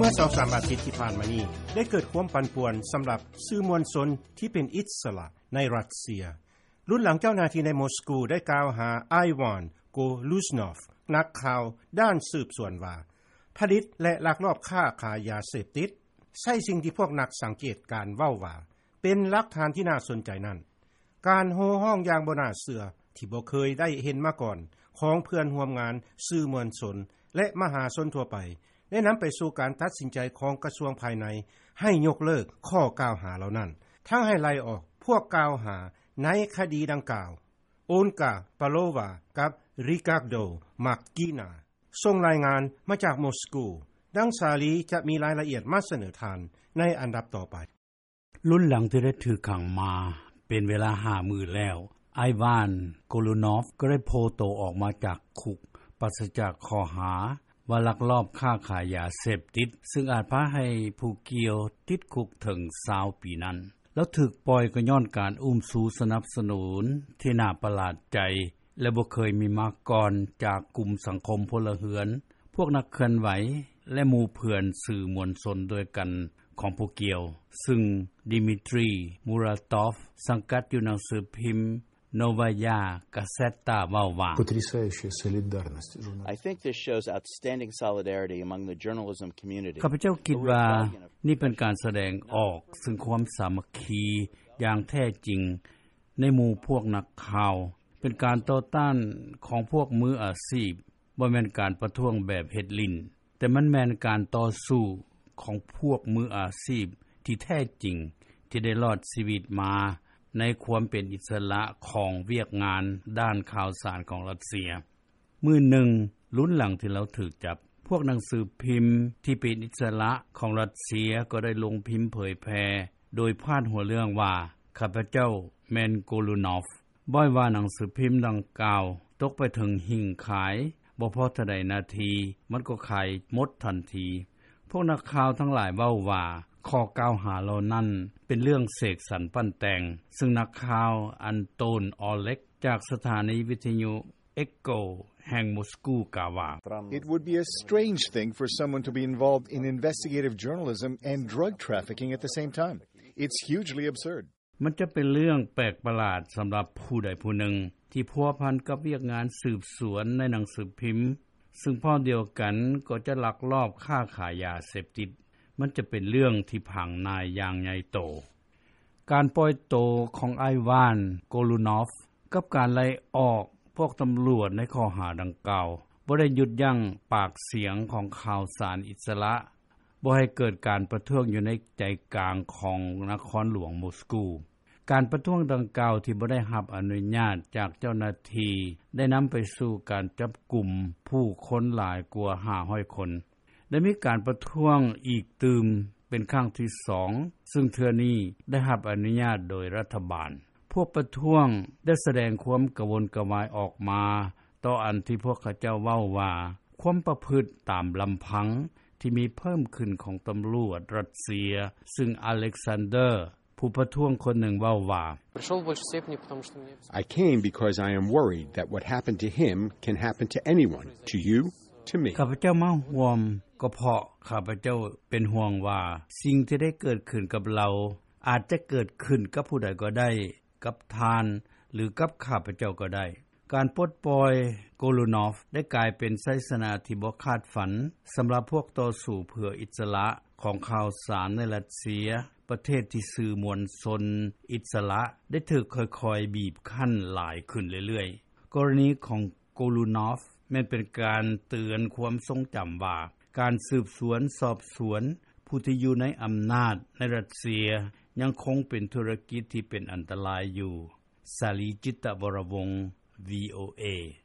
ເມື່ອສອງສາມອາທິດທີ່ຜ່ານມານີ້ ໄດ້ເກີດຄວາມປັ່ນປ່ວນສຳລັບສື່ມວນຊົນທີ່ເປັນອິດສະຫຼະໃນຣັດເຊຍ ລຸນຫຼັງເຈົ້າໜ້າທີ່ໃນໂມສກູໄດ້ກ່າວຫາ Ivan Golunov ນັກຂ່າວດ້ານສືບສວນວ່າ ຜະລິດ ແລະ ລັກລອບຄ້າຂາຍຢາເສບຕິດ, ໃຊ້ສິ່ງທີ່ພວກນັກສັງເກດການເວົ້າວ່າ ເປັນຫຼັກຖານທີ່ໜ້າສົນໃຈນັ້ນ, ການໂຫ່ຮ້ອງຢ່າງບໍ່ໜ້າເຊື່ອທີ່ບໍ່ເຄີຍໄດ້ເຫັນມາກ່ອນຂອງເພື່ອນຮ່ວມງານ, ສື່ມວນຊົນ ແລະ ມະຫາຊົນທົ່ວໄປ ໄດ້ນຳໄປສູ່ການຕັດສິນໃຈຂອງກະຊວງພາຍໃນໃຫ້ຍົກເລີກຂໍ້ກ່າວຫາເຫຼົ່ານັ້ນ, ທັງໃຫ້ໄລ່ອອກພວກກ່າວຫາໃນຄະດີດັ່ງກ່າວ. Olga Palova ກັບ Ricardo Marquina ສົ່ງລາຍງານມາຈາກໂມສກູ. ດັ່ງສາລີຈະມີລາຍລະອຽດມາສະເໜີທ່ານໃນອັນດັບຕໍ່ໄປ. ລຸນຫຼັງທີ່ໄດ້ຖືກຂັງມາເປັນເວລາຫ້າມື້ແລ້ວ, Ivan Golunov ກໍໄດ້ໂຜ່ໂຕອອກມາຈາກຄຸກ ປາສະຈາກຂໍ້ຫາວ່າລັກລອບຄ້າຂາຍຢາເສບຕິດ, ຊຶ່ງອາດພາໃຫ້ຜູ້ກ່ຽວຕິດຄຸກເຖິງຊາວປີນັ້ນ. ລາວຖືກປ່ອຍກໍຍ້ອນການອຸ້ມຊູສະໜັບສະໜູນທີ່ໜ້າປະຫຼາດໃຈ ແລະ ບໍ່ເຄີຍມີມາກ່ອນຈາກກຸ່ມສັງຄົມພົນລະເຮືອນ, ພວກນັກເຄື່ອນໄຫວ ແລະ ໝູ່ເພື່ອນສື່ມວນຊົນດ້ວຍກັນຂອງຜູ້ກ່ຽວ, ຊຶ່ງ Dmitry Muratov ສັງກັດຢູ່ໜັງສືພິມ Novaya Gazeta ເວົ້າວ່າ Потрясающая солидарность журналистов. I think this shows outstanding solidarity among the journalism community. ຂ້າພະເຈົ້າຄິດວ່ານີ້ເປັນການສະແດງອອກເຊິ່ງຄວາມສາມັກຄີຢ່າງແທ້ຈິງໃນໝູ່ພວກນັກຂ່າວ, ເປັນການຕໍ່ຕ້ານຂອງພວກມືອາຊີບ, ບໍ່ແມ່ນການປະທ້ວງແບບເຮັດຫຼິ້ນ, ແຕ່ມັນແມ່ນການຕໍ່ສູ້ຂອງພວກມືອາຊີບທີ່ແທ້ຈິງ ທີ່ໄດ້ລອດຊີວິດມາໃນຄວາມເປັນອິດສະຫຼະຂອງວຽກງານດ້ານຂ່າວສານຂອງຣັດເຊຍ. ມື້ໜຶ່ງ ລຸນຫຼັງທີ່ລາວຖືກຈັບ, ພວກໜັງສືພິມທີ່ເປັນອິດສະຫຼະຂອງຣັດເຊຍກໍໄດ້ລົງພິມເຜີຍແຜ່ ໂດຍພາດຫົວເລື່ອງວ່າ ຂ້າພະເຈົ້າແມ່ນ Golunov. ບ່ອຍວ່າໜັງສືພິມດັ່ງກ່າວຕົກໄປເຖິງຫິ້ງຂາຍ, ບໍ່ພໍເທົ່າໃດນາທີ ມັນກໍຂາຍໝົດທັນທີ. ພວກນັກຂ່າວທັງຫຼາຍເວົ້າວ່າ ຂໍ້ກ່າວຫາເຫຼົ່ານັ້ນເປັນເລື່ອງເສກສັນປັ້ນແຕ່ງ, ຊຶ່ງນັກຂ່າວ Anton Oleg ຈາກສະຖານີວິທະຍຸ Echo ແຫ່ງໂມສກູກ່າວວ່າ It would be a strange thing for someone to be involved in investigative journalism and drug trafficking at the same time. It's hugely absurd. ມັນຈະເປັນເລື່ອງແປກປະຫຼາດສຳລັບຜູ້ໃດຜູ້ໜຶ່ງທີ່ພົວພັນກັບວຽກງານສືບສວນໃນໜັງສືພິມ, ຊຶ່ງພ້ອມດຽວກັນກໍຈະລັກລອບຄ້າຂາຍຢາເສບຕິດ. ມັນຈະເປັນເລື່ອງທີ່ຜັງໜາຍຢ່າງໃຫຍ່ໂຕ. ການປ່ອຍໂຕຂອງອ້າຍຫວານ ໂກລູນອຟ ກັບການໄລ່ອອກພວກຕຳຫຼວດໃນຂໍ້ຫາດັ່ງກ່າວ ບໍ່ໄດ້ຢຸດຢັ້ງປາກສຽງຂອງຂ່າວສານອິດສະຫຼະ, ບໍ່ໃຫ້ເກີດການປະທ້ວງຢູ່ໃນໃຈກາງຂອງນະຄອນຫຼວງໂມສກູ. ການປະທ້ວງດັ່ງກ່າວທີ່ບໍ່ໄດ້ຮັບອະນຸຍາດຈາກເຈົ້າໜ້າທີ່ ໄດ້ນຳໄປສູ່ການຈັບກຸມຜູ້ຄົນຫຼາຍກວ່າຫ້າຮ້ອຍຄົນ. ໄດ້ມີການປະທ້ວງອີກຕື່ມເປັນຄັ້ງທີສອງ, ຊຶ່ງເທື່ອນີ້ໄດ້ຮັບອະນຸຍາດໂດຍລັດຖະບານ. ພວກປະທ້ວງໄດ້ສະແດງຄວາມກະວົນກະວາຍອອກມາ ຕໍ່ອັນທີ່ພວກເຂົາເຈົ້າເວົ້າວ່າ ຄວາມປະພຶດຕາມລຳພັງທີ່ມີເພີ່ມຂຶ້ນຂອງຕຳຫຼວດຣັດເຊຍ, ຊຶ່ງອາເລັກຊານເດີ ຜູ້ປະທ້ວງຄົນໜຶ່ງເວົ້າວ່າ Пришёл в большей степени, потому что мне I came because I am worried that what happened to him can happen to anyone, to you, to me. ຂ້າພະເຈົ້າມາຮ່ວມກໍເພາະຂ້າພະເຈົ້າເປັນຫ່ວງວ່າ ສິ່ງທີ່ໄດ້ເກີດຂຶ້ນກັບລາວ ອາດຈະເກີດຂຶ້ນກັບຜູ້ໃດກໍໄດ້, ກັບທ່ານ ຫຼື ກັບຂ້າພະເຈົ້າກໍໄດ້. ການປົດປ່ອຍໂກລູນອຟ ໄດ້ກາຍເປັນໄຊຊະນະທີ່ບໍ່ຄາດຝັນສຳລັບພວກຕໍ່ສູ້ເພື່ອອິດສະຫຼະຂອງຂ່າວສານໃນຣັດເຊຍ, ປະເທດທີ່ສື່ມວນຊົນອິດສະຫຼະໄດ້ຖືກຄ່ອຍໆບີບຄັ້ນຫຼາຍຂຶ້ນເລື້ອຍໆ. ກໍລະນີຂອງໂກລູນອຟ ແມ່ນເປັນການເຕືອນຄວາມຊົງຈຳວ່າ ການສືບສວນສອບສວນຜູ້ທີ່ຢູ່ໃນອຳນາດໃນຣັດເຊຍ ຍັງຄົງເປັນທຸລະກິດທີ່ເປັນອັນຕະລາຍຢູ່. ສາລີ ຈິດຕະວໍລະວົງ ວີໂອເອ.